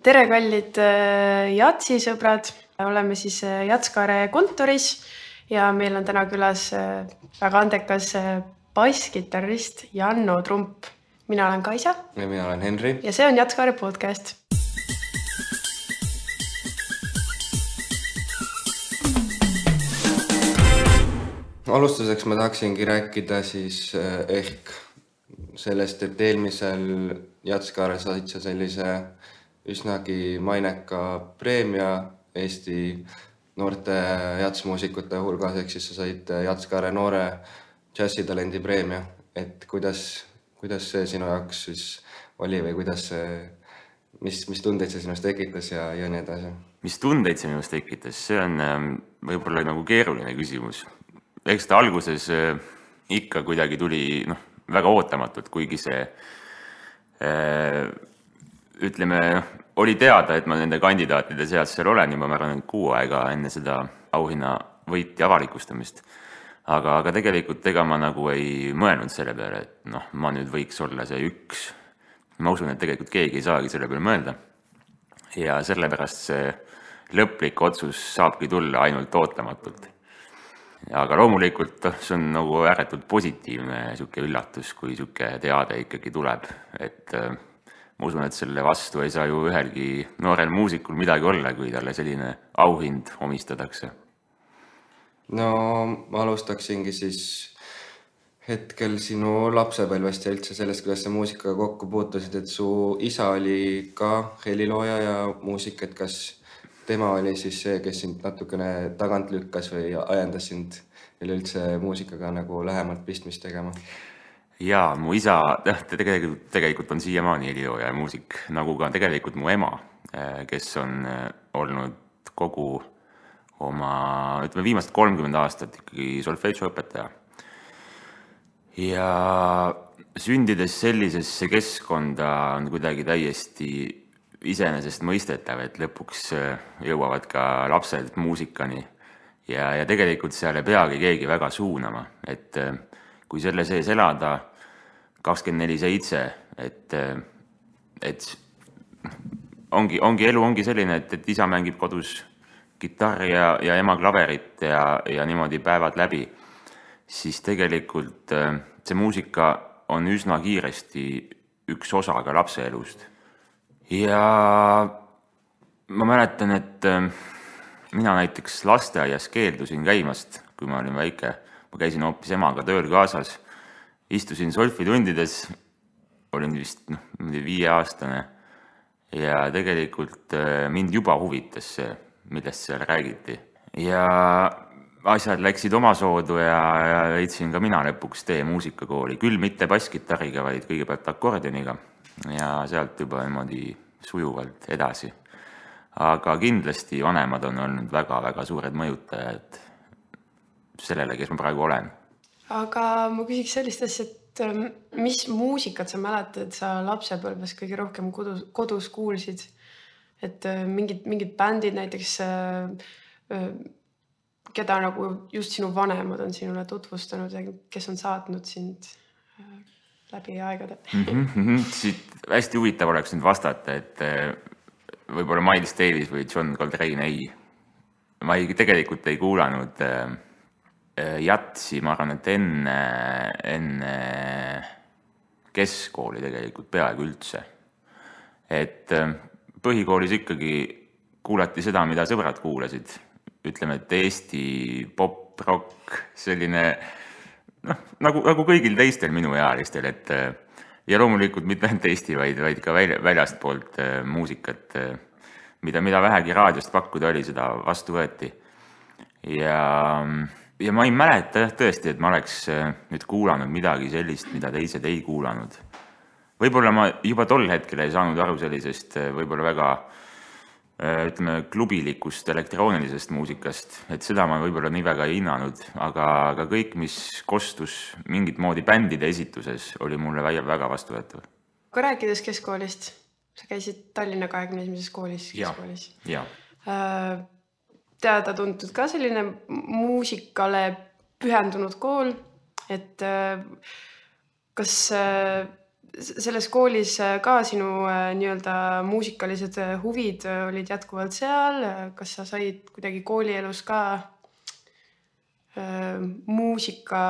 Tere kallid jatsisõbrad, oleme siis Jatskaare kontoris ja meil on täna külas väga andekas basskitarrist Janno Trump. Mina olen Kaisa. Ja mina olen Henri. Ja see on Jatskaare podcast. Alustuseks ma tahaksingi rääkida siis ehk sellest, et eelmisel Jatskaare said sa sellise üsnagi maineka preemia Eesti noorte jatsmuusikute hulgas, ehk siis sa said Jatskaare noore džässitalendi preemia. Et kuidas see sinu jaoks siis oli või mis tundeid see sinust tekitas ja nii edasi? Mis tundeid see minust tekitas? See on võib-olla nagu keeruline küsimus. Eks ta alguses ikka kuidagi tuli väga ootamatult, kuigi see ütleme, oli teada, et ma nende kandidaatide seas seal olen juba, ma arvan, 6 aega enne seda auhinna võiti avalikustamist. Aga tegelikult ega ma nagu ei mõelnud selle peale, et ma nüüd võiks olla see üks. Ma usun, et tegelikult keegi ei saagi selle peale mõelda. Ja sellepärast see lõplik otsus saabki tulla ainult ootamatult. Aga loomulikult see on nagu ääretult positiivne siuke üllatus, kui siuke teade ikkagi tuleb. Et ma usun, et selle vastu ei saa ju ühelgi noorel muusikul midagi olla, kui talle selline auhind omistatakse. No ma alustaksingi siis hetkel sinu lapsepõlvest ja üldse sellest, kuidas sa muusikaga kokku puutusid, et su isa oli ka helilooja ja muusik, et kas tema oli siis see, kes sind natukene tagant lükkas või ajendas sind üldse muusikaga nagu lähemalt pistmist tegema? Jaa, mu isa tegelikult on siiamaani helilooja ja muusik, nagu ka tegelikult mu ema, kes on olnud kogu oma, viimast 30 aastat ikkagi solfeggio õpetaja. Ja sündides sellisesse keskkonda on kuidagi täiesti iseenesest mõistetav, et lõpuks jõuavad ka lapsed muusikani ja tegelikult seal ei peagi keegi väga suunama, et kui selle sees elada 24/7, et elu ongi selline, et isa mängib kodus kitarri ja ema klaverit ja niimoodi päevad läbi, siis tegelikult see muusika on üsna kiiresti üks osa ka lapse elust. Ja ma mäletan, et mina näiteks lasteaias keeldusin käimast, kui ma olin väike. Ma käisin hoopis emaga tööl kaasas, istusin solfitundides, olin vist 5-aastane ja tegelikult mind juba huvitas see, millest seal räägiti. Ja asjad läksid oma soodu ja leidsin ka mina lõpuks tee muusikakooli, küll mitte basskitarriga, vaid kõigepealt akordioniga. Ja sealt juba niimoodi sujuvalt edasi. Aga kindlasti vanemad on olnud väga-väga suured mõjutajad sellele, kes ma praegu olen. Aga ma küsiks sellist asja, et mis muusikat sa mäletad, sa lapsepõlves kõige rohkem kodus kuulsid? Et mingid bändid näiteks, keda nagu just sinu vanemad on sinule tutvustanud ja kes on saatnud sind läbi aegade? Siit hästi huvitav oleks nüüd vastata, et võib-olla Miles Davis või John Coltrane ei. Ma tegelikult ei kuulanud jatsi, ma arvan, et enne keskkooli tegelikult peaaegu üldse. Et põhikoolis ikkagi kuulati seda, mida sõbrad kuulasid. Ütleme, et Eesti pop, rock, selline nagu kõigil teistel minu ealistel, et ja loomulikult mitte ainult Eesti, vaid ka väljast poolt muusikat, mida vähegi raadiost pakkuda oli, seda vastu võeti. Ja ma ei mäleta tõesti, et ma oleks nüüd kuulanud midagi sellist, mida teised ei kuulanud. Võib-olla ma juba tol hetkel ei saanud aru sellisest võib-olla väga klubilikust elektroonilisest muusikast, et seda ma võib-olla nii väga ei hinnanud, aga kõik, mis kostus mingit moodi bändide esituses, oli mulle väga vastuvõetav. Kui rääkides keskkoolist, sa käisid Tallinna 21. koolis keskkoolis. Ja. Teada tuntud ka selline muusikale pühendunud kool, et kas selles koolis ka sinu nii-öelda muusikalised huvid olid jätkuvalt seal? Kas sa said kuidagi koolielus ka muusika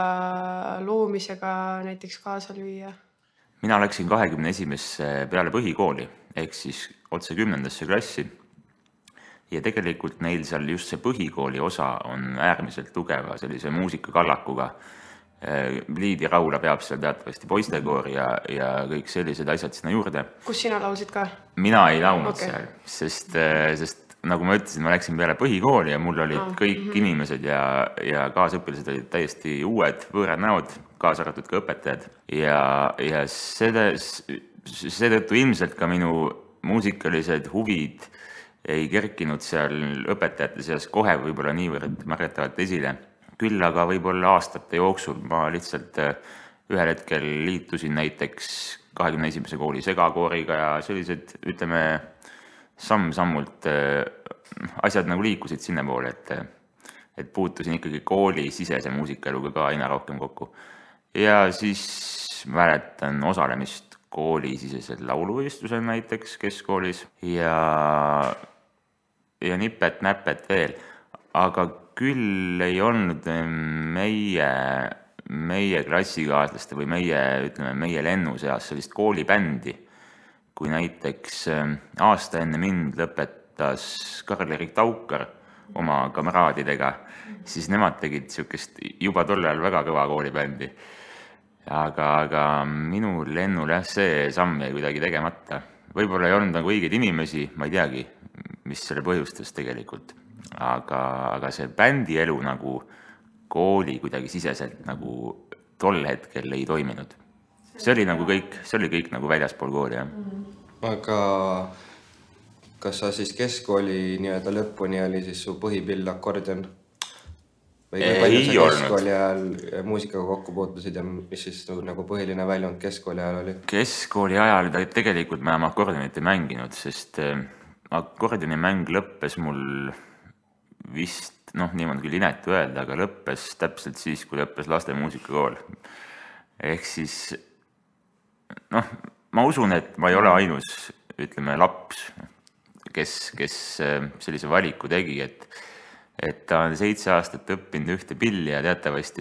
loomisega näiteks kaasa lüüa? Mina läksin 21. peale põhikooli, ehk siis otse 10. klassi. Ja tegelikult neil seal just see põhikooli osa on äärmiselt tugeva sellise muusikakallakuga. Liivi Raula peab seal teatavasti poistekoor ja kõik sellised asjad sinna juurde. Kus sina laulsid ka? Mina ei laulnud seal, sest nagu ma ütlesin, ma läksin peale põhikooli ja mul olid kõik inimesed ja kaasõpilased olid täiesti uued võõrad näod, kaasa arvatud ka õpetajad. Ja seetõttu ilmselt ka minu muusikalised huvid ei kerkinud seal õpetajate seas kohe võib-olla niivõrd märgatavalt esile. Küll aga võib-olla aastate jooksul ma lihtsalt ühel hetkel liitusin näiteks 21. kooli segakooriga ja sellised, ütleme, samm-sammult asjad nagu liikusid sinna poole, et puutusin ikkagi kooli sisese muusikaeluga ka aina rohkem kokku. Ja siis mäletan osalemist koolisisesel lauluvõistlusel näiteks keskkoolis ja nipet-näpet veel, aga küll ei olnud meie klassikaaslaste või meie lennu seas sellist koolibändi, kui näiteks aasta enne mind lõpetas Karl-Erik Taukar oma kamraadidega, siis nemad tegid niisugust juba tollal väga kõva koolibändi. Aga minu lennul see samm jäi kuidagi tegemata. Võib-olla ei olnud nagu õigeid inimesi, ma ei teagi, mis selle põhjustas tegelikult. Aga see bändi elu nagu kooli kuidagi siseselt nagu tol hetkel ei toiminud. See oli kõik nagu väljaspool kooli, jah. Aga kas sa siis keskkooli nii-öelda lõpuni oli siis su põhipill akordion? Või palju sa keskkooli ajal muusikaga kokku puutusid ja mis siis nagu põhiline väljund keskkooli ajal oli? Keskkooli ajal tegelikult ma enam akordionit ei mänginud, sest akordioni mäng lõppes mul vist, niimoodi küll inetu öelda, aga lõppes täpselt siis, kui lõppes laste muusikakool. Ehk siis, ma usun, et ma ei ole ainus, ütleme, laps, kes sellise valiku tegi, et ta on 7 aastat õppinud ühte pilli ja teatavasti,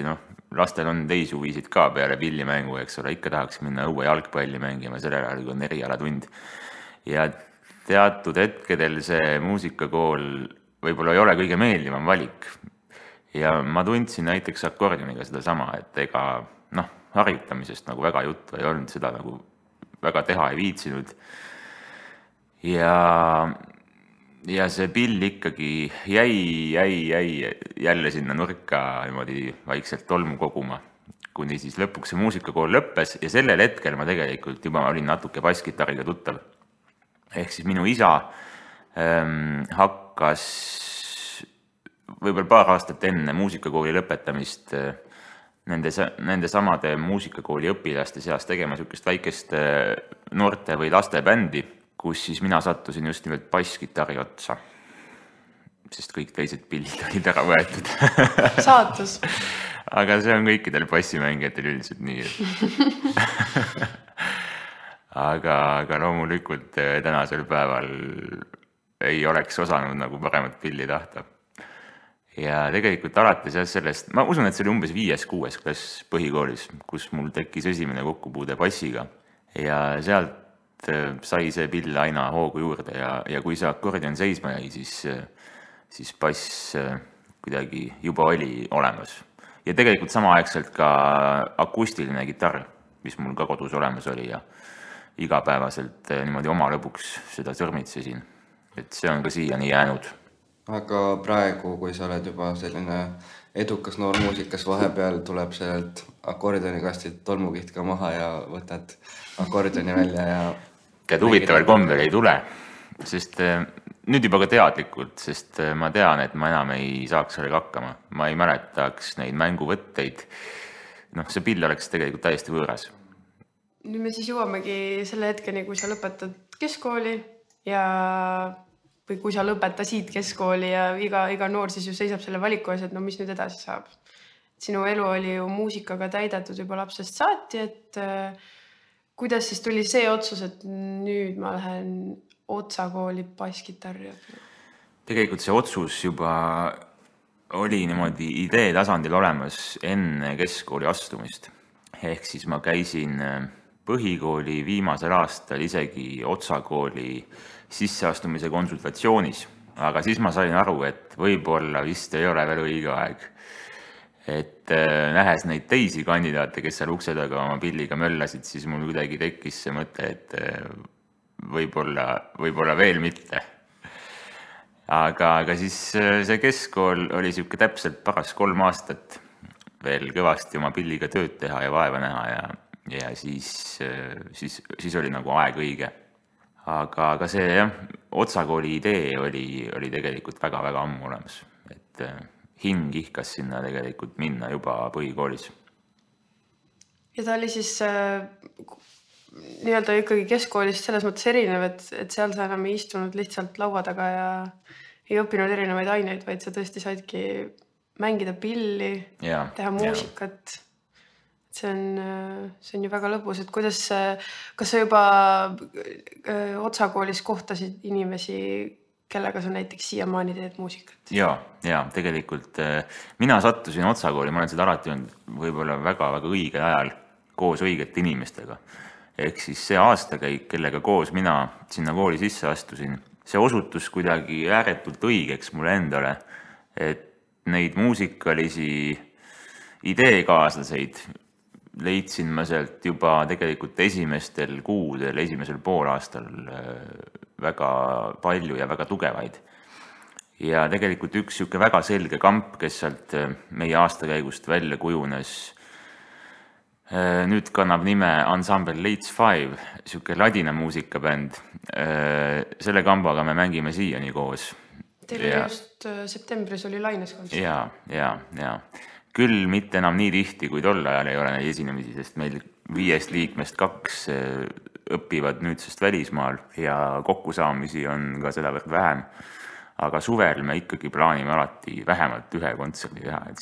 lastel on teisi huvisid ka peale pillimängu, eks ole, ikka tahaks minna õue jalgpalli mängima, sellel ajal, kui on erialatund. Ja teatud hetkedel see muusikakool võib-olla ei ole kõige meeldivam valik. Ja ma tundsin näiteks akordioniga seda sama, et ega harjutamisest nagu väga juttu ei olnud, seda nagu väga teha ei viitsinud. Ja see pill ikkagi jäi jälle sinna nurka niimoodi vaikselt tolmu koguma, kuni siis lõpuks see muusikakool lõppes ja sellel hetkel ma tegelikult juba olin natuke basskitariga tuttav. Ehk siis minu isa hakkas võib-olla paar aastat enne muusikakooli lõpetamist nende samade muusikakooli õpilaste seas tegema niisugust väikest noorte või laste bändi, kus siis mina sattusin just nimelt basskitari otsa, sest kõik teised pillid olid ära võetud. Saatus. Aga see on kõikidel bassimängijatel üldiselt nii. Aga loomulikult tänasel päeval ei oleks osanud nagu paremat pilli tahta. Ja tegelikult alates sellest, ma usun, et see oli umbes 5.–6. klass põhikoolis, kus mul tekkis esimene kokkupuude bassiga. Ja sealt sai see pill aina hoogu juurde ja kui see akordion seisma jäi, siis bass kuidagi juba oli olemas. Ja tegelikult samaaegselt ka akustiline kitarr, mis mul ka kodus olemas oli ja igapäevaselt niimoodi oma lõbuks seda sõrmitsesin. Et see on ka siiani jäänud. Aga praegu, kui sa oled juba selline edukas noor muusikas, vahepeal tuleb sellelt akordionikastilt tolmukiht ka maha ja võtad akordioni välja ja... Tead, huvitaval kombel ei tule, sest nüüd juba ka teadlikult, sest ma tean, et ma enam ei saaks sellega hakkama. Ma ei mäletaks neid mänguvõtteid. See pill oleks tegelikult täiesti võõras. Nüüd me siis jõuamegi selle hetkeni, kui sa lõpetad keskkooli või kui sa lõpetasid keskkooli ja iga noor siis ju seisab selle valiku ees, et mis nüüd edasi saab. Sinu elu oli ju muusikaga täidetud juba lapsest saati, et kuidas siis tuli see otsus, et nüüd ma lähen Otsa kooli basskitarri õppima? Tegelikult see otsus juba oli niimoodi idee tasandil olemas enne keskkooli astumist. Ehk siis ma käisin põhikooli viimasel aastal isegi Otsa kooli sisseastumise konsultatsioonis, aga siis ma sain aru, et võib-olla vist ei ole veel õige aeg. Et nähes neid teisi kandidaate, kes seal ukse taga oma pilliga möllasid, siis mul kuidagi tekkis see mõte, et võib-olla veel mitte. Aga siis see keskkool oli siuke täpselt paras 3 aastat veel kõvasti oma pilliga tööd teha ja vaeva näha ja siis oli nagu aeg õige. Aga see jah, Otsa kooli idee oli tegelikult väga-väga ammu olemas, et hing ihkas sinna tegelikult minna juba põhikoolis. Ja ta oli siis nii-öelda ikkagi keskkoolist selles mõttes erinev, et seal sa enam ei istunud lihtsalt laua taga ja ei õppinud erinevaid aineid, vaid sa tõesti saidki mängida pilli, teha muusikat. See on ju väga lõbus, et kas sa juba Otsa koolis kohtasid inimesi, kellega sa näiteks siiamaani teed muusikat? Ja tegelikult mina sattusin Otsa kooli, ma olen seda alati olnud võib-olla väga-väga õigel ajal koos õigete inimestega. Ehk siis see aastakäik, kellega koos mina sinna kooli sisse astusin, see osutus kuidagi ääretult õigeks mulle endale, et neid muusikalisi ideekaaslaseid leidsin ma sealt juba tegelikult esimestel kuudel, esimesel poolaastal väga palju ja väga tugevaid. Ja tegelikult üks siuke väga selge kamp, kes sealt meie aastakäigust välja kujunes, nüüd kannab nime Ensemble Leeds 5, siuke ladina muusikabänd. Selle kambaga me mängime siiani koos. Teil oli just septembris oli Laines kontsert. Ja. Küll mitte enam nii tihti, kui tol ajal ei ole neid esinemisi, sest meil 5 liikmest 2 õpivad nüüdsest välismaal ja kokkusaamisi on ka seda võrd vähem. Aga suvel me ikkagi plaanime alati vähemalt 1 kontserdi teha, et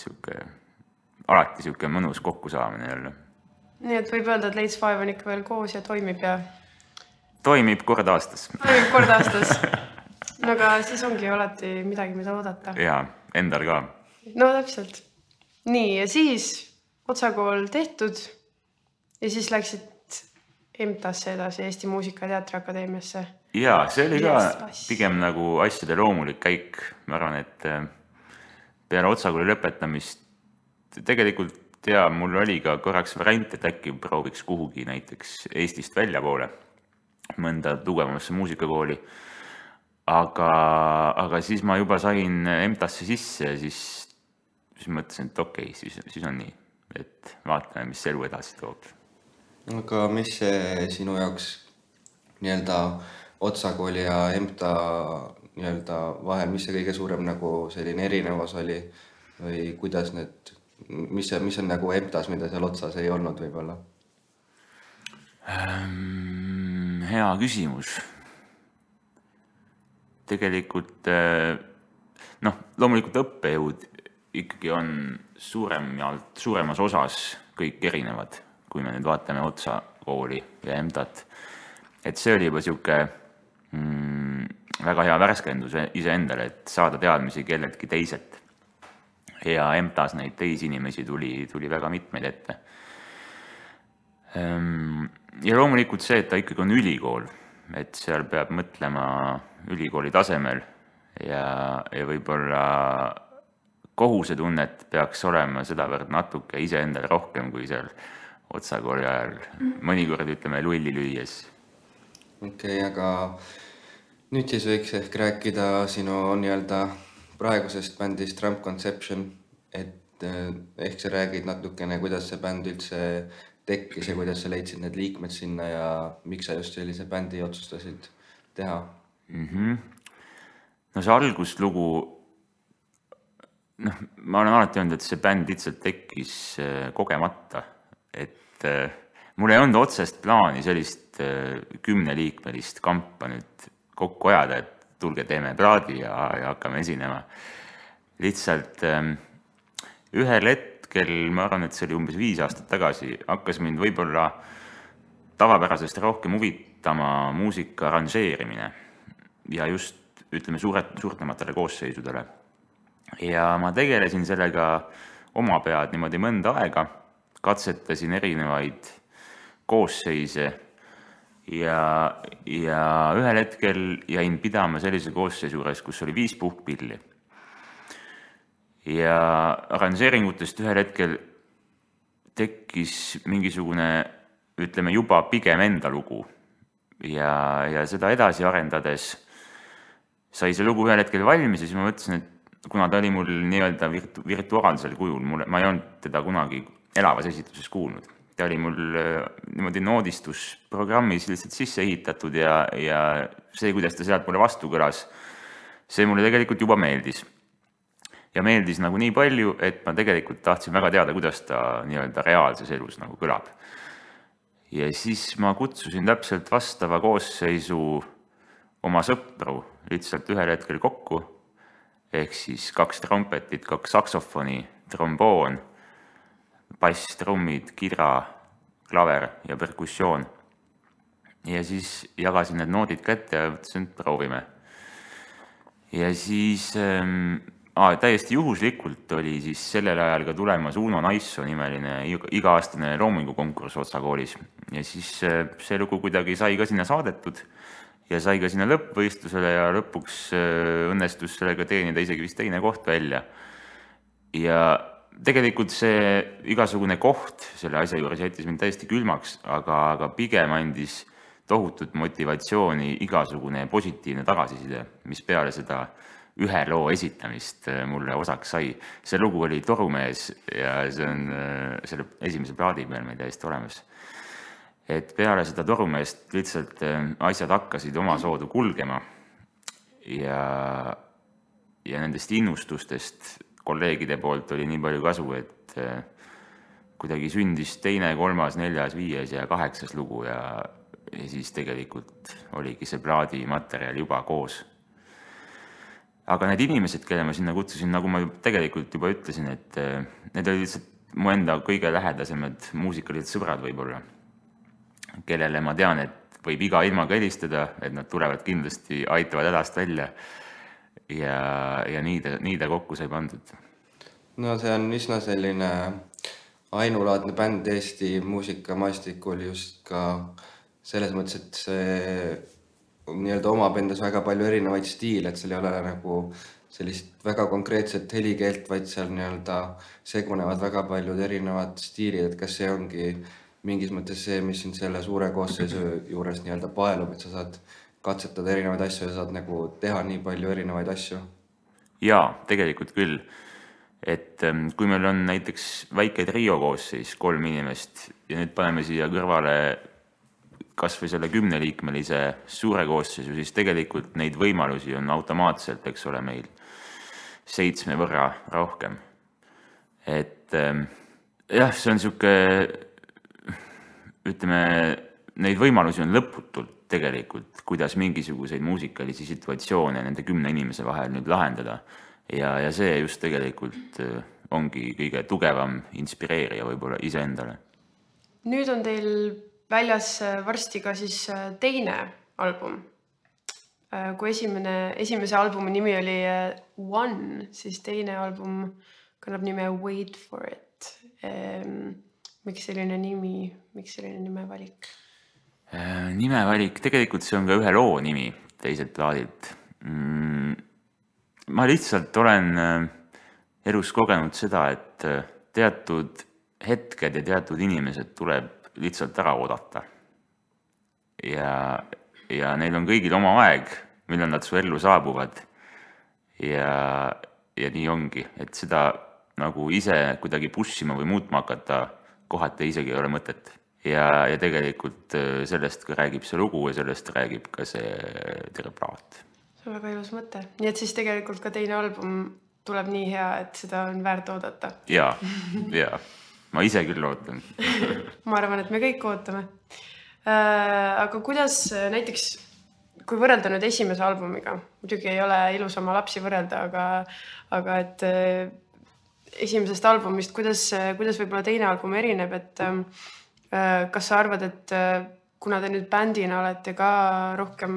alati siuke mõnus kokkusaamine jälle. Nii et võib öelda, et Leeds 5 on ikka veel koos ja toimib ja... Toimib kord aastas. Toimib kord aastas. No aga siis ongi alati midagi, mida oodata. Ja, endal ka. No täpselt. Nii, ja siis Otsa kool tehtud ja siis läksid EMTA-sse edasi, Eesti Muusika- ja Teatriakadeemiasse. Ja, see oli ka pigem nagu asjade loomulik käik. Ma arvan, et peale Otsa kooli lõpetamist tegelikult mul oli ka korraks variant, et äkki prooviks kuhugi näiteks Eestist välja poole mõnda tugevamasse muusikakooli. Aga siis ma juba sain EMTA-sse sisse ja siis mõtlesin, et okei, siis on nii, et vaatame, mis elu edasi toob. Aga mis see sinu jaoks nii-öelda Otsa kooli ja EMTA nii-öelda vahel, mis see kõige suurem nagu selline erinevus oli või kuidas mis on nagu EMTA-s, mida seal Otsas ei olnud võib-olla? Hea küsimus. Tegelikult, loomulikult õppejõud ikkagi on suuremas osas kõik erinevad, kui me nüüd vaatame Otsa kooli ja EMTA-t. Et see oli juba siuke väga hea värskendus iseendale, et saada teadmisi kelleltki teiselt. Ja EMTA-s neid teisi inimesi tuli väga mitmeid ette. Ja loomulikult see, et ta ikkagi on ülikool, et seal peab mõtlema ülikooli tasemel ja võib-olla kohusetunnet peaks olema sedavõrd natuke iseendale rohkem kui seal Otsa kooli ajal. Mõnikord ütleme lulli lüües. Okei, aga nüüd siis võiks ehk rääkida sinu nii-öelda praegusest bändist Ramp Conception, et ehk sa räägid natukene, kuidas see bänd üldse tekkis ja kuidas sa leidsid need liikmed sinna ja miks sa just sellise bändi otsustasid teha? No see alguslugu, ma olen alati öelnud, et see bänd lihtsalt tekkis kogemata, et mul ei olnud otsest plaani sellist 10-liikmelist kampa nüüd kokku ajada, et tulge teeme plaadi ja hakkame esinema. Lihtsalt ühel hetkel, ma arvan, et see oli umbes 5 aastat tagasi, hakkas mind võib-olla tavapärasest rohkem huvitama muusika arranžeerimine ja just, ütleme, suurtematele koosseisudele. Ja ma tegelesin sellega oma pead niimoodi mõnda aega, katsetasin erinevaid koosseise ja ühel hetkel jäin pidama sellise koosseisu juures, kus oli 5 puhkpilli. Ja arranžeeringutest ühel hetkel tekkis mingisugune, ütleme, juba pigem enda lugu. Ja seda edasi arendades sai see lugu ühel hetkel valmis ja siis ma mõtlesin, et kuna ta oli mul nii-öelda virtuaalsel kujul, ma ei olnud teda kunagi elavas esituses kuulnud. Ta oli mul niimoodi noodistusprogrammis lihtsalt sisse ehitatud ja see, kuidas ta sealt mulle vastu kõlas, see mulle tegelikult juba meeldis. Ja meeldis nagu nii palju, et ma tegelikult tahtsin väga teada, kuidas ta nii-öelda reaalses elus nagu kõlab. Ja siis ma kutsusin täpselt vastava koosseisu oma sõpru lihtsalt ühel hetkel kokku, ehk siis 2 trompetit, 2 saksofoni, tromboon, bass, trummid, kidra, klaver ja perkussioon. Ja siis jagasin need noodid kätte ja mõtlesin, et proovime. Ja siis täiesti juhuslikult oli siis sellel ajal ka tulemas Uno Naisso nimeline iga-aastane loomingukonkurss Otsa koolis. Ja siis see lugu kuidagi sai ka sinna saadetud ja sai ka sinna lõppvõistlusele ja lõpuks õnnestus sellega teenida isegi vist 2. koht välja. Ja tegelikult see igasugune koht selle asja juures jättis mind täiesti külmaks, aga pigem andis tohutut motivatsiooni igasugune positiivne tagasiside, mis peale seda ühe loo esitamist mulle osaks sai. See lugu oli Torumees ja see on selle esimese plaadi peal meil täiesti olemas. Et peale seda Torumeest lihtsalt asjad hakkasid oma soodu kulgema ja nendest innustustest kolleegide poolt oli nii palju kasu, et kuidagi sündis 2., 3., 4., 5. ja 8. lugu ja siis tegelikult oligi see plaadi materjal juba koos. Aga need inimesed, kelle ma sinna kutsusin, nagu ma tegelikult juba ütlesin, et need olid lihtsalt mu enda kõige lähedasemad muusikalised sõbrad võib-olla, kellele ma tean, et võib iga ilmaga helistada, et nad tulevad kindlasti, aitavad hädast välja ja nii ta kokku sai pandud. No see on üsna selline ainulaadne bänd Eesti muusikamaastikul just ka selles mõttes, et see nii-öelda omab endas väga palju erinevaid stiile, et seal ei ole nagu sellist väga konkreetset helikeelt, vaid seal nii-öelda segunevad väga paljud erinevad stiilid, et kas see ongi mingis mõttes see, mis siin selle suure koosseisu juures nii-öelda paelub, et sa saad katsetada erinevaid asju ja saad nagu teha nii palju erinevaid asju? Jaa, tegelikult küll. Et kui meil on näiteks väike trio koosseis, 3 inimest ja nüüd paneme siia kõrvale kas või selle 10-liikmelise suure koosseisu, siis tegelikult neid võimalusi on automaatselt, eks ole, meil 7 võrra rohkem. Et jah, see on siuke, ütleme, neid võimalusi on lõputult tegelikult, kuidas mingisuguseid muusikalisi situatsioone nende 10 inimese vahel nüüd lahendada. Ja see just tegelikult ongi kõige tugevam inspireerija võib-olla iseendale. Nüüd on teil väljas varsti ka siis 2. album. Kui esimese albumi nimi oli One, siis 2. album kannab nime Wait for it. Miks selline nimevalik? Nimevalik, tegelikult see on ka ühe loo nimi teiselt plaadilt. Ma lihtsalt olen elus kogenud seda, et teatud hetked ja teatud inimesed tuleb lihtsalt ära oodata. Ja neil on kõigil oma aeg, millal nad su ellu saabuvad. Ja nii ongi, et seda nagu ise kuidagi pushima või muutma hakata kohati isegi ei ole mõtet. Ja tegelikult sellest ka räägib see lugu ja sellest räägib ka see terve plaat. See on väga ilus mõte. Nii et siis tegelikult ka 2. album tuleb nii hea, et seda on väärt oodata. Jaa. Ma ise küll ootan. Ma arvan, et me kõik ootame. Aga kuidas näiteks, kui võrrelda nüüd esimese albumiga, muidugi ei ole ilus oma lapsi võrrelda, aga et esimesest albumist, kuidas võib-olla 2. album erineb, et kas sa arvad, et kuna te nüüd bändina olete ka rohkem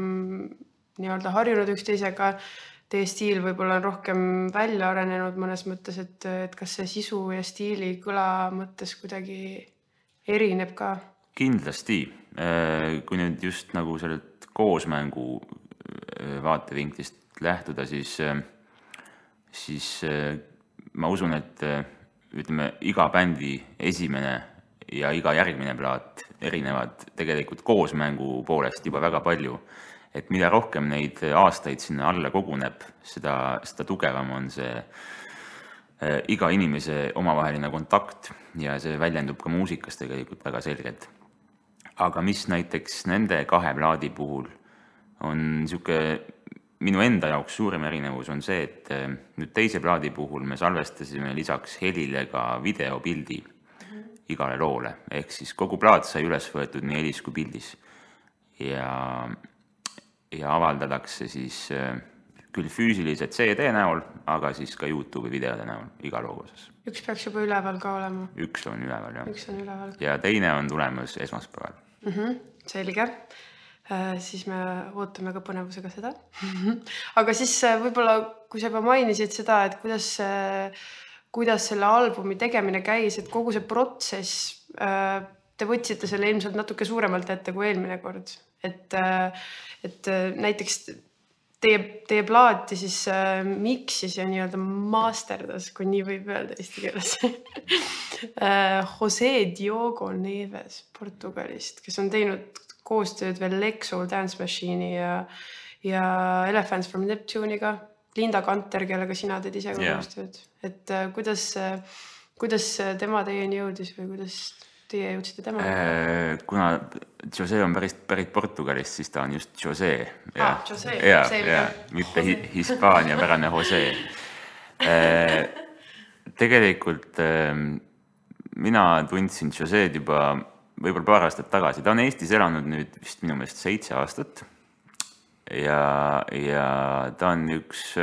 nii-öelda harjunud üksteisega, teie stiil võib-olla on rohkem välja arenenud mõnes mõttes, et kas see sisu ja stiili kõla mõttes kuidagi erineb ka? Kindlasti. Kui nüüd just nagu sellelt koosmängu vaatevinklist lähtuda, siis ma usun, et ütleme, iga bändi esimene ja iga järgmine plaat erinevad tegelikult koosmängu poolest juba väga palju. Et mida rohkem neid aastaid sinna alla koguneb, seda tugevam on see iga inimese omavaheline kontakt ja see väljendub ka muusikas tegelikult väga selgelt. Aga mis näiteks nende 2 plaadi puhul on niisugune minu enda jaoks suurim erinevus on see, et nüüd teise plaadi puhul me salvestasime lisaks helile ka videopildi igale loole. Ehk siis kogu plaat sai üles võetud nii helis kui pildis. Ja avaldatakse siis küll füüsiliselt CD näol, aga siis ka YouTube'i videode näol iga loo osas. Üks peaks juba üleval ka olema. Üks on üleval, jah. Üks on üleval. Ja teine on tulemas esmaspäeval. Selge. Siis me ootame ka põnevusega seda. Aga siis võib-olla, kui sa juba mainisid seda, et kuidas selle albumi tegemine käis, et kogu see protsess, te võtsite selle ilmselt natuke suuremalt ette kui eelmine kord. Et näiteks teie plaati siis miksis ja nii-öelda masterdas, kui nii võib öelda eesti keeles. José Diogo Neves Portugalist, kes on teinud koostööd veel Lexoul Dance Machine'i ja Elephants from Neptune'iga, Linda Kanter, kellega sina teed ise koostööd. Et kuidas tema teieni jõudis või kuidas teie jõudsite tema? Kuna José on pärit Portugalist, siis ta on just José. José, selge. Mitte Hispaania pärane José. Tegelikult mina tundsin Joséd juba võib-olla paar aastat tagasi. Ta on Eestis elanud nüüd vist minu meelest 7 aastat. Ja ta on üks,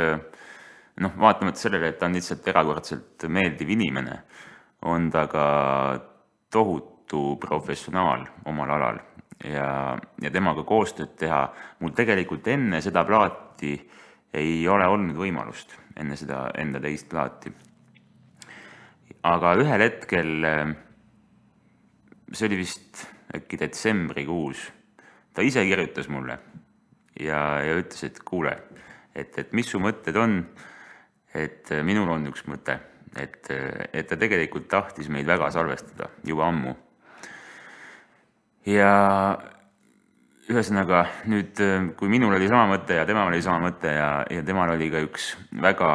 vaatamata sellele, et ta on lihtsalt erakordselt meeldiv inimene, on ta ka tohutu professionaal omal alal ja temaga koostööd teha. Mul tegelikult enne seda plaati ei ole olnud võimalust, enne seda enda teist plaati. Aga ühel hetkel, see oli vist äkki detsembrikuus, ta ise kirjutas mulle ja ütles, et kuule, et mis su mõtted on, et minul on üks mõte. Et ta tegelikult tahtis meid väga salvestada juba ammu. Ja ühesõnaga nüüd, kui minul oli sama mõte ja temal oli sama mõte ja temal oli ka üks väga,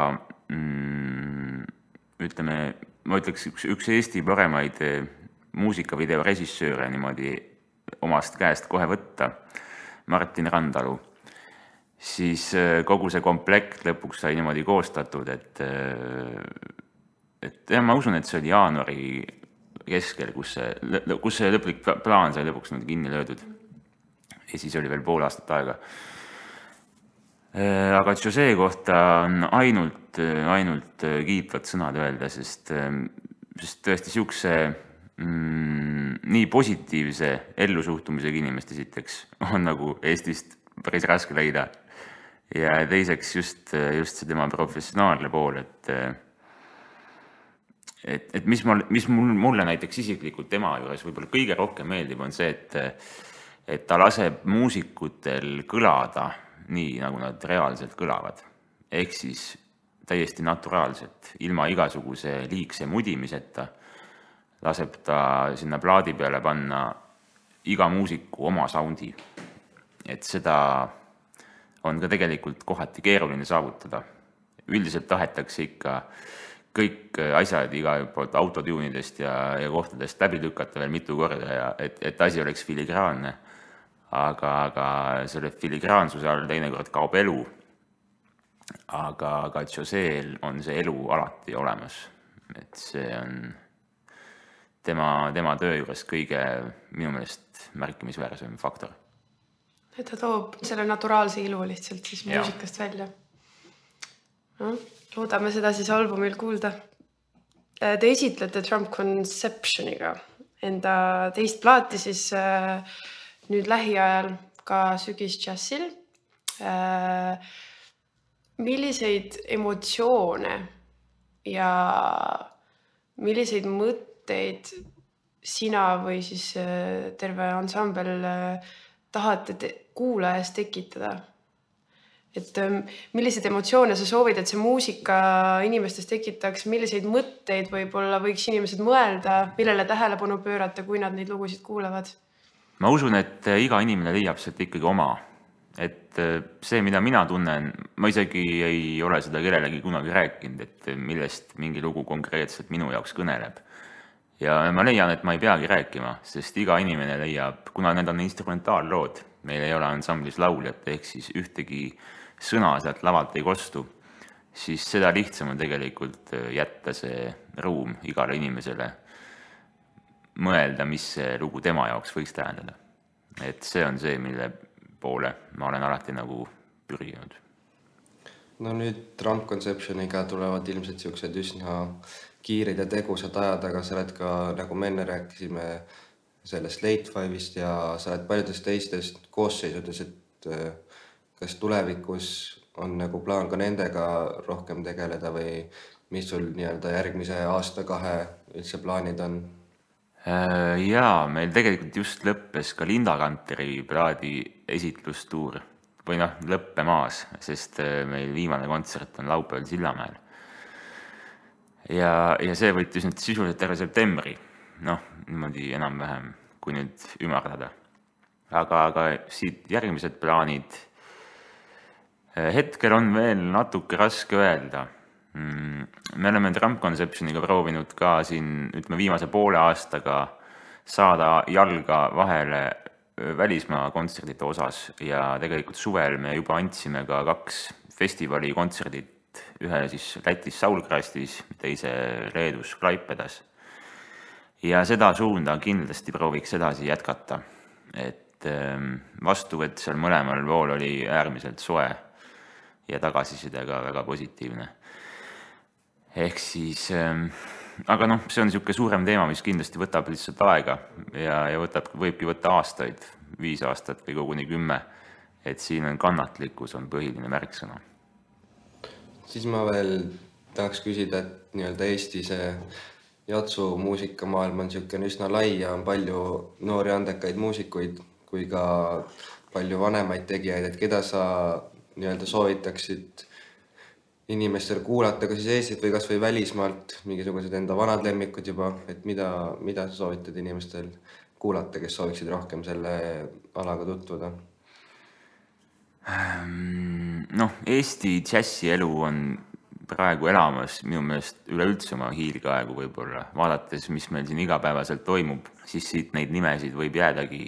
ütleme, ma ütleks üks Eesti paremaid muusikavideo režissööre niimoodi omast käest kohe võtta, Martin Randalu, siis kogu see komplekt lõpuks sai niimoodi koostatud, et ma usun, et see oli jaanuari keskel, kus see lõplik plaan sai lõpuks kinni löödud. Ja siis oli veel pool aastat aega. Aga José kohta on ainult kiitvad sõnad öelda, sest tõesti siukse nii positiivse ellusuhtumisega inimest esiteks on nagu Eestist päris raske leida. Ja teiseks just see tema professionaalne pool, et mis mulle näiteks isiklikult tema juures võib-olla kõige rohkem meeldib, on see, et ta laseb muusikutel kõlada nii, nagu nad reaalselt kõlavad. Ehk siis täiesti naturaalselt, ilma igasuguse liigse mudimiseta, laseb ta sinna plaadi peale panna iga muusiku oma soundi. Et seda on ka tegelikult kohati keeruline saavutada. Üldiselt tahetakse ikka kõik asjad iga poolt autotuunidest ja kohtadest läbi lükata veel mitu korda, et asi oleks filigraanne. Aga selle filigraansuse all teinekord kaob elu. Aga Joseel on see elu alati olemas. Et see on tema töö juures kõige minu meelest märkimisväärsem faktor. Et ta toob selle naturaalse ilu lihtsalt siis muusikast välja. Loodame seda siis albumil kuulda. Te esitlete Trump Conceptioniga enda teist plaati siis nüüd lähiajal ka sügisdžässil. Milliseid emotsioone ja milliseid mõtteid sina või siis terve ansambel tahate kuulajas tekitada? Et milliseid emotsioone sa soovid, et see muusika inimestes tekitaks, milliseid mõtteid võib-olla võiks inimesed mõelda, millele tähelepanu pöörata, kui nad neid lugusid kuulevad? Ma usun, et iga inimene leiab sealt ikkagi oma. Et see, mida mina tunnen, ma isegi ei ole seda kellelegi kunagi rääkinud, et millest mingi lugu konkreetselt minu jaoks kõneleb. Ja ma leian, et ma ei peagi rääkima, sest iga inimene leiab, kuna need on instrumentaallood, meil ei ole ansamblis lauljat, ehk siis ühtegi sõna sealt lavalt ei kostu, siis seda lihtsam on tegelikult jätta see ruum igale inimesele mõelda, mis see lugu tema jaoks võiks tähendada. Et see on see, mille poole ma olen alati nagu pürginud. No nüüd Drum Conceptioniga tulevad ilmselt siuksed üsna kiirid ja tegusad ajad, aga sa oled ka, nagu me enne rääkisime, sellest Late Five'ist ja sa oled paljudest teistest koosseisudes, et kas tulevikus on nagu plaan ka nendega rohkem tegeleda või mis sul nii-öelda järgmise aasta-2 üldse plaanid on? Jaa, meil tegelikult just lõppes ka Linda Kanteri plaadi esitlustuur või lõppemaas, sest meil viimane kontsert on laupäeval Sillamäel. Ja see võttis nüüd sisuliselt terve septembri, niimoodi enam-vähem, kui nüüd ümardada. Aga siit järgmised plaanid hetkel on veel natuke raske öelda. Me oleme Drum Conceptioniga proovinud ka siin, viimase poole aastaga saada jalga vahele välismaa kontserdite osas ja tegelikult suvel me juba andsime ka 2 festivali kontserdit, ühe siis Lätis Saulkrastis, teise Leedus Klaipedas. Ja seda suunda kindlasti prooviks edasi jätkata, et vastuvõtt seal mõlemal pool oli äärmiselt soe ja tagasiside ka väga positiivne. Ehk siis, aga see on niisugune suurem teema, mis kindlasti võtab lihtsalt aega ja võibki võtta aastaid, 5 aastat või koguni 10, et siin on kannatlikkus on põhiline märksõna. Siis ma veel tahaks küsida, et nii-öelda Eesti see jatsu muusikamaailm on niisugune üsna lai ja on palju noori andekaid muusikuid kui ka palju vanemaid tegijaid, et keda sa nii-öelda soovitaksid inimestel kuulata ka siis Eestit või kas või välismaalt, mingisugused enda vanad lemmikud juba, et mida sa soovitad inimestel kuulata, kes sooviksid rohkem selle alaga tutvuda? Eesti džässielu on praegu elamas minu meelest üleüldse oma hiilgaegu võib-olla. Vaadates, mis meil siin igapäevaselt toimub, siis siit neid nimesid võib jäädagi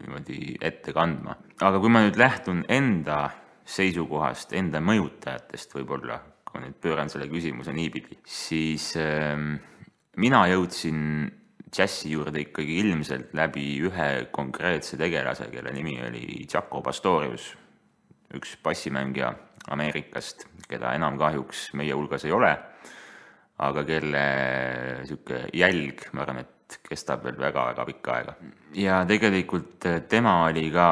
niimoodi ette kandma. Aga kui ma nüüd lähtun enda seisukohast, enda mõjutajatest võib-olla, kui nüüd pööran selle küsimuse niipidi, siis mina jõudsin džässi juurde ikkagi ilmselt läbi ühe konkreetse tegelase, kelle nimi oli Jaco Pastorius, üks bassimängija Ameerikast, keda enam kahjuks meie hulgas ei ole, aga kelle jälg, ma arvan, et kestab veel väga-väga pikka aega. Ja tegelikult tema oli ka,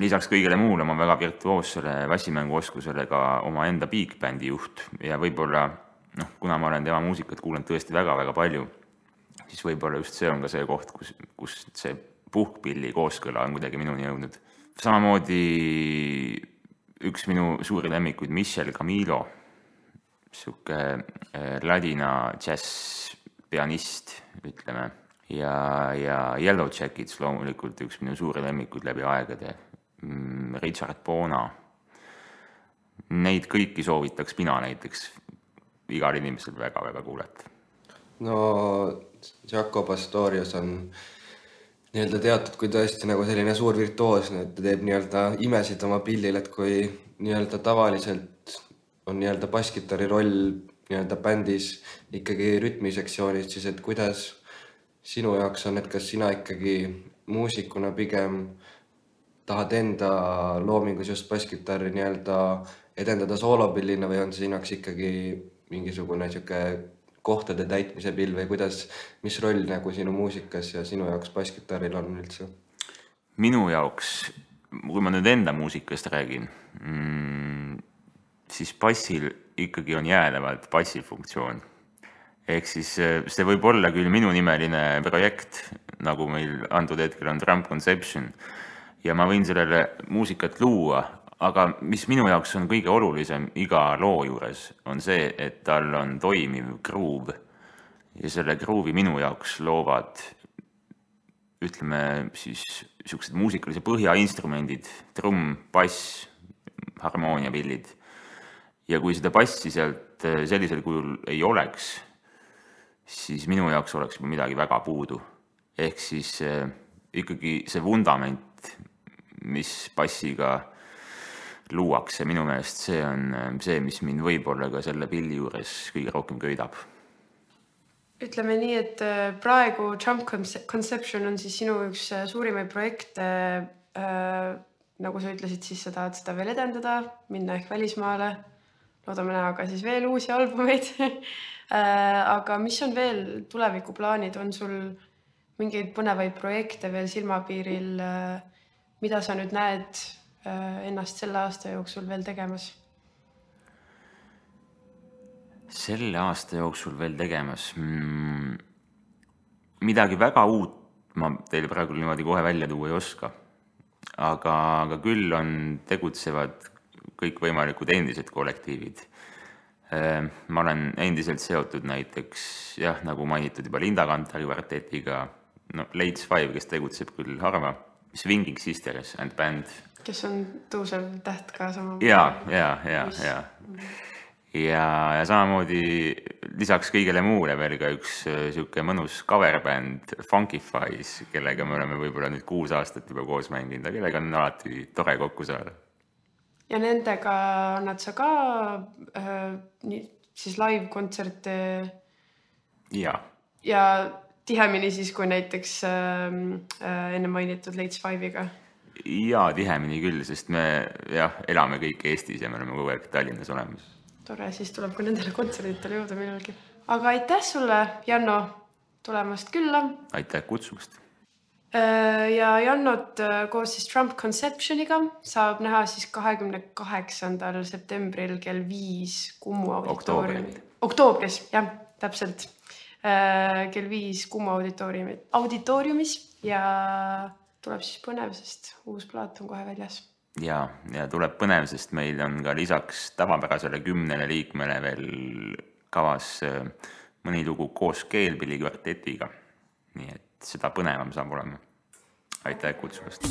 lisaks kõigele muule oma väga virtuoossele bassimänguoskusele ka oma enda big bändi juht ja võib-olla, kuna ma olen tema muusikat kuulanud tõesti väga-väga palju, siis võib-olla just see on ka see koht, kus see puhkpilli kooskõla on kuidagi minuni jõudnud. Samamoodi üks minu suuri lemmikuid, Michel Camilo, siuke ladina jazz pianist, ütleme, ja Yellow Jackets loomulikult üks minu suuri lemmikuid läbi aegade, Richard Bona. Neid kõiki soovitaks mina näiteks igal inimesel väga-väga kuulata. No Jaco Pastorius on nii-öelda teatud kui tõesti nagu selline suur virtuoos, et ta teeb nii-öelda imesid oma pillil, et kui nii-öelda tavaliselt on nii-öelda basskitarri roll nii-öelda bändis ikkagi rütmisektsioonis, siis et kuidas sinu jaoks on, et kas sina ikkagi muusikuna pigem tahad enda loomingus just basskitarri nii-öelda edendada soolopillina või on sinaks ikkagi mingisugune kohtade täitmise pill või kuidas, mis roll nagu sinu muusikas ja sinu jaoks basskitarril on üldse? Minu jaoks, kui ma nüüd enda muusikast räägin, siis bassil ikkagi on jäädavalt bassifunktsioon. Ehk siis see võib olla küll minu nimeline projekt, nagu meil antud hetkel on Trump Conception, ja ma võin sellele muusikat luua, aga mis minu jaoks on kõige olulisem iga loo juures, on see, et tal on toimiv groove. Ja selle groove'i minu jaoks loovad, ütleme siis, niisugused muusikalise põhjainstrumendid, trumm, bass, harmooniapillid. Ja kui seda bassi sealt sellisel kujul ei oleks, siis minu jaoks oleks midagi väga puudu. Ehk siis ikkagi see vundament, mis bassiga luuakse, minu meelest see on see, mis mind võib-olla ka selle pilli juures kõige rohkem köidab. Ütleme nii, et praegu Trump Conception on siis sinu üks suurimaid projekte, nagu sa ütlesid, siis sa tahad seda veel edendada, minna ehk välismaale, loodame näha ka siis veel uusi albumeid. Aga mis on veel tulevikuplaanid, on sul mingeid põnevaid projekte veel silmapiiril, mida sa nüüd näed ennast selle aasta jooksul veel tegemas? Selle aasta jooksul veel tegemas? Midagi väga uut ma teile praegu niimoodi kohe välja tuua ei oska. Aga küll on tegutsevad kõik võimalikud endised kollektiivid. Ma olen endiselt seotud näiteks, nagu mainitud juba Linda Kantari kvartetiga, Lates 5, kes tegutseb küll harva, Swinging Sisters and Band. Kes on tõusev täht ka sama. Ja samamoodi lisaks kõigele muule veel ka üks siuke mõnus coverbänd Funkifies, kellega me oleme võib-olla nüüd 6 aastat juba koos mänginud, kellega on alati tore kokku saada. Ja nendega annad sa ka siis live-kontserte ja tihemini siis, kui näiteks enne mainitud Lates 5-iga? Ja tihemini küll, sest me elame kõik Eestis ja me oleme kogu aeg Tallinnas olemas. Tore, siis tuleb ka nendele kontserditele jõuda millalgi. Aga aitäh sulle, Janno, tulemast külla. Aitäh kutsumast. Ja Jannot koos siis Trump Conceptioniga saab näha siis 28. septembril kell 5 Kumu Oktoobris, täpselt. Kell 5 Kumu auditooriumis ja tuleb siis põnev, sest uus plaat on kohe väljas. Ja tuleb põnev, sest meil on ka lisaks tavapärasele 10 liikmele veel kavas mõni lugu koos Keelpilli kvartetiga. Nii et seda põnevam saab olema. Aitäh kutsumast!